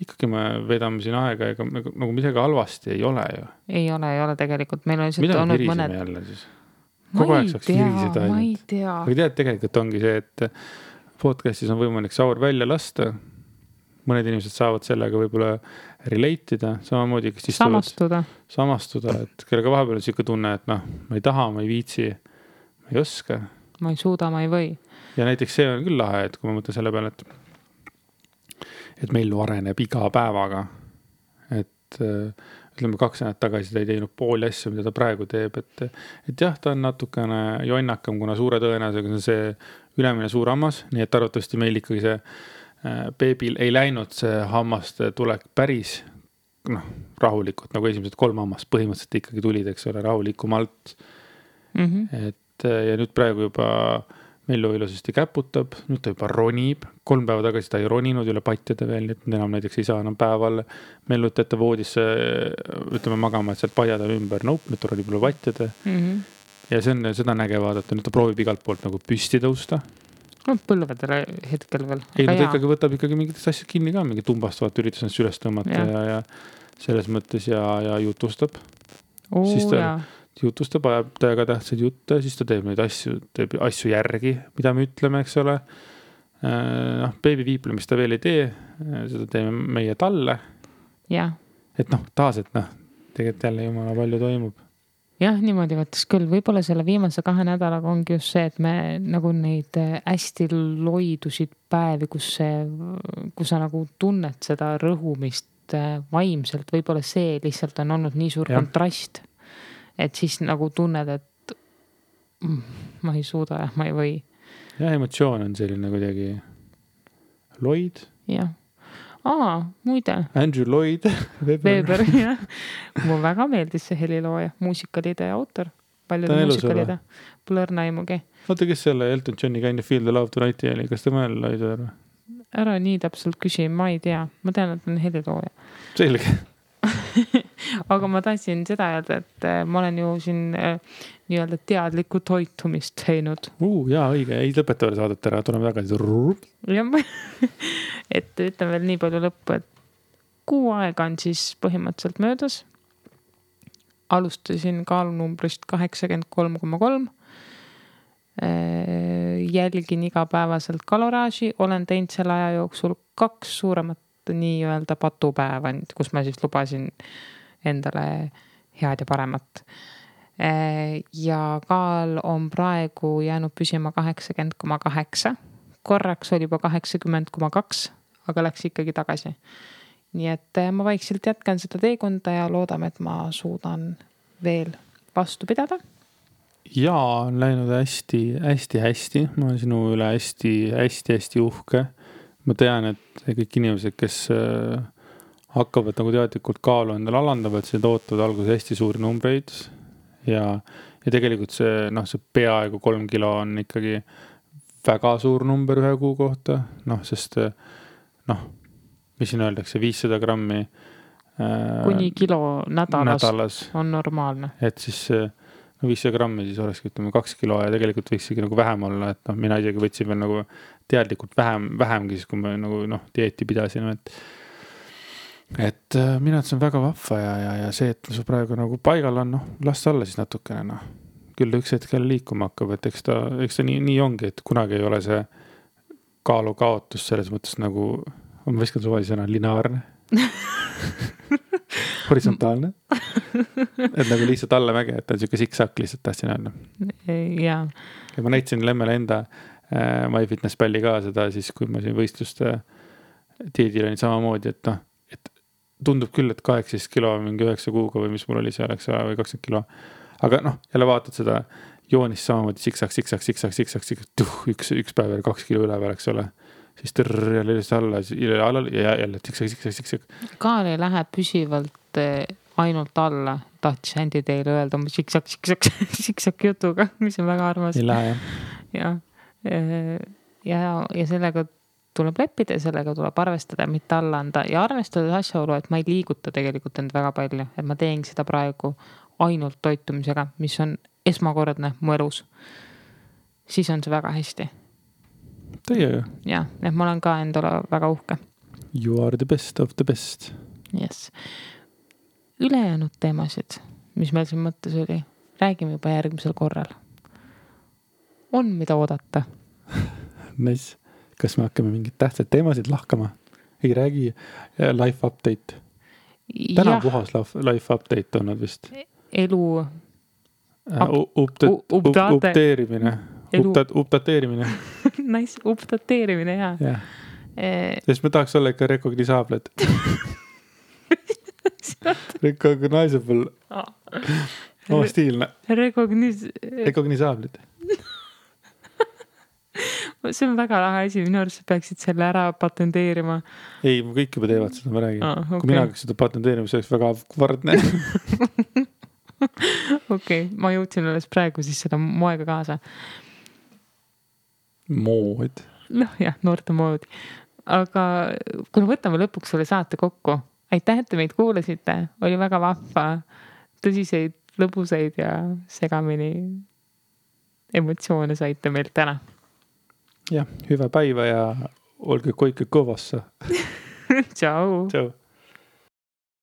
ikkagi me vedame siin aega, ega nagu midagi halvasti ei ole ju. Ei ole tegelikult. Meil on mida me virisime jälle siis? Kogu aeg saaks virisida ainult. Ma ei tea. Aga tead, tegelikult ongi see, et podcastis on võimalik saur välja lasta. Mõned inimesed saavad sellega võib-olla relate'ida, samamoodi, kes samastuda, et kellega vahepeal on siuke tunne, et noh, ma ei taha, ma ei viitsi, ma ei oska. Ma ei suuda, ma ei või. Ja näiteks see on küll lahe, et kui ma mõtlen selle peale, et meil areneb iga päevaga, et ütleme 2 nädalat tagasi ta ei teinud pooli asju, mida ta praegu teeb, et jah, ta on natukene jonnakam, kuna suure tõenäosusega on see ülemine suur hammas, nii et arvatavasti meil ikkagi see beebil ei läinud see hammaste tulek päris rahulikult, nagu esimesed 3 hammast põhimõtteliselt ikkagi tulid, eks ole, rahulikumalt. Et ja nüüd praegu juba Mellu ilusasti käputab, nüüd ta juba ronib, 3 päeva tagasi ta ei roninud üle patjade veel, et enam näiteks ei saa enam päeval Mellut ette voodisse, ütleme magama, et sealt paiada ümber, nüüd ta ronib üle patjade. Ja see on seda näge vaadata, nüüd ta proovib igalt poolt nagu püsti tõusta. Põlvedele hetkel veel. Ei, ta ikkagi võtab ikkagi mingitest asjad kinni ka, mingi tumbastavad üritus ennast üles tõmmata ja selles mõttes ja jutustab. Siis ta jutustab, ajab täiega tähtsad jutte, siis ta teeb neid asju järgi, mida me ütleme, eks ole. Beebi viiplemist ta veel ei tee, seda teeme meie talle. Et taas, et tegelikult jälle jumala palju toimub. Jah, niimoodi võttes küll. Võib-olla selle viimase 2 nädalaga ongi just see, et me nagu neid hästi loidusid päevi, kus sa nagu tunned seda rõhumist vaimselt, võib-olla see lihtsalt on olnud nii suur kontrast, et siis nagu tunned, et ma ei suuda ja ma ei või. Ja emotsioon on selline kuidagi loid. Jah. Muide. Andrew Lloyd Weber, jah. Mulle väga meeldis see helilooja, muusikalide autor. Paljude muusikalide. Pole õrna aimugi. Oota, kes selle Elton Johni Kind of Feel the Love Tonight oli? Kas ta mõel Lloyd või? Ära nii täpselt küsi, ma ei tea. Ma tean, et on helilooja. Selge. Aga ma tahtsin seda öelda, et ma olen ju siin nii-öelda teadlikku toitumist teinud. Jaa, õige. Ei lõpeta veel saadet ära, tuleme tagasi. Et ütlen veel nii palju lõppu, et 6 aega on siis põhimõtteliselt möödas. Alustasin kaalunumbrist 83,3. Jälgin igapäevaselt kaloraaži. Olen teinud selle aja jooksul 2 suuremat nii-öelda patupäeva, kus ma siis lubasin endale head ja paremat. Ja kaal on praegu jäänud püsima 80,8. Korraks oli juba 80,2, aga läks ikkagi tagasi. Nii et ma vaikselt jätkan seda teekonda ja loodame, et ma suudan veel vastu pidada. Jaa, on läinud hästi. Ma olen sinu üle hästi uhke. Ma tean, et kõik inimesed, kes hakkavad nagu teadlikult kaalu endale alandavad, see tootavad alguses hästi suuri numbreid ja tegelikult see peaaegu 3 kilo on ikkagi väga suur number 1 kuu kohta, sest mis siin öeldakse, 500 grammi kuni kilo nädalas, on normaalne. et siis 500 grammi siis olekski, ütleme 2 kilo ja tegelikult võiksigi nagu vähem olla, et noh, mina isegi võtsin veel nagu teadlikult vähemgi siis, kui ma nagu dieeti pidasin, et mina, et see on väga vahva ja see, et su praegu nagu paigal on, las alla siis natukene, küll üks hetkel liikuma hakkab, et eks ta nii ongi, et kunagi ei ole see kaalu kaotus selles mõttes nagu, ma viskan suvalise lineaarne. Horisontaalne. Et nagu lihtsalt allamäge, et on siuke siksak lihtsalt tahtsin öelda. Ja ma näitasin Lemmele enda MyFitnessPalli ka seda siis, kui ma siin võistluste diedil olin samamoodi, et tundub küll, et 18 kilo mingi 9 kuuga või mis mul oli seal, eks või 20 kilo. Aga jälle vaatad seda joonist samamoodi siksak, üks päev veel 2 kilo üle veel, eks ole. Siis jälle alla ja jälle siksak. Kaal ei lähe püsivalt ainult alla. Tahtis Andy teile öelda oma siksak jutuga, mis on väga armas. Ei lähe, jah. Ja sellega tuleb leppida ja sellega tuleb arvestada, mitte alla anda. Ja arvestada asjaolu, et ma ei liiguta tegelikult end väga palju. Et ma teen seda praegu ainult toitumisega, mis on esmakordne mu elus. Siis on see väga hästi. Teie ju. Jah, et ma olen ka endale väga uhke. You are the best of the best. Yes. Ülejäänud teemasid, mis meil siin mõttes oli, räägime juba järgmisel korral. On mida oodata. Nice. Kas me hakkame mingid tähtsad teemasid lahkama? Ei räägi life update. Täna puhas life update on vist. Elu updateerimine. Updateerimine. Nice, updateerimine, jah. Yeah. Sest me tahaks olla ikka recognisable. Recognizable. Stiilne. Recognisable. See on väga lahe asi, minu arust peaksid selle ära patenteerima. Ei, kõik juba teevad seda, ma räägin. Okay. Kui mina hakkaks seda patenteerima, see oleks väga vardne. Okei, ma jõudsin alles praegu siis seda moega kaasa. Mood. Jah, noorte mood. Aga kui võtame lõpuks selle saate kokku, aitäh, et te meid kuulasite. Oli väga vahva, tõsiseid, lõbuseid ja segamini emotsioone saite meilt täna. Jah, hyvä päivä ja olge koike kõvassa. Ciao. Ciao.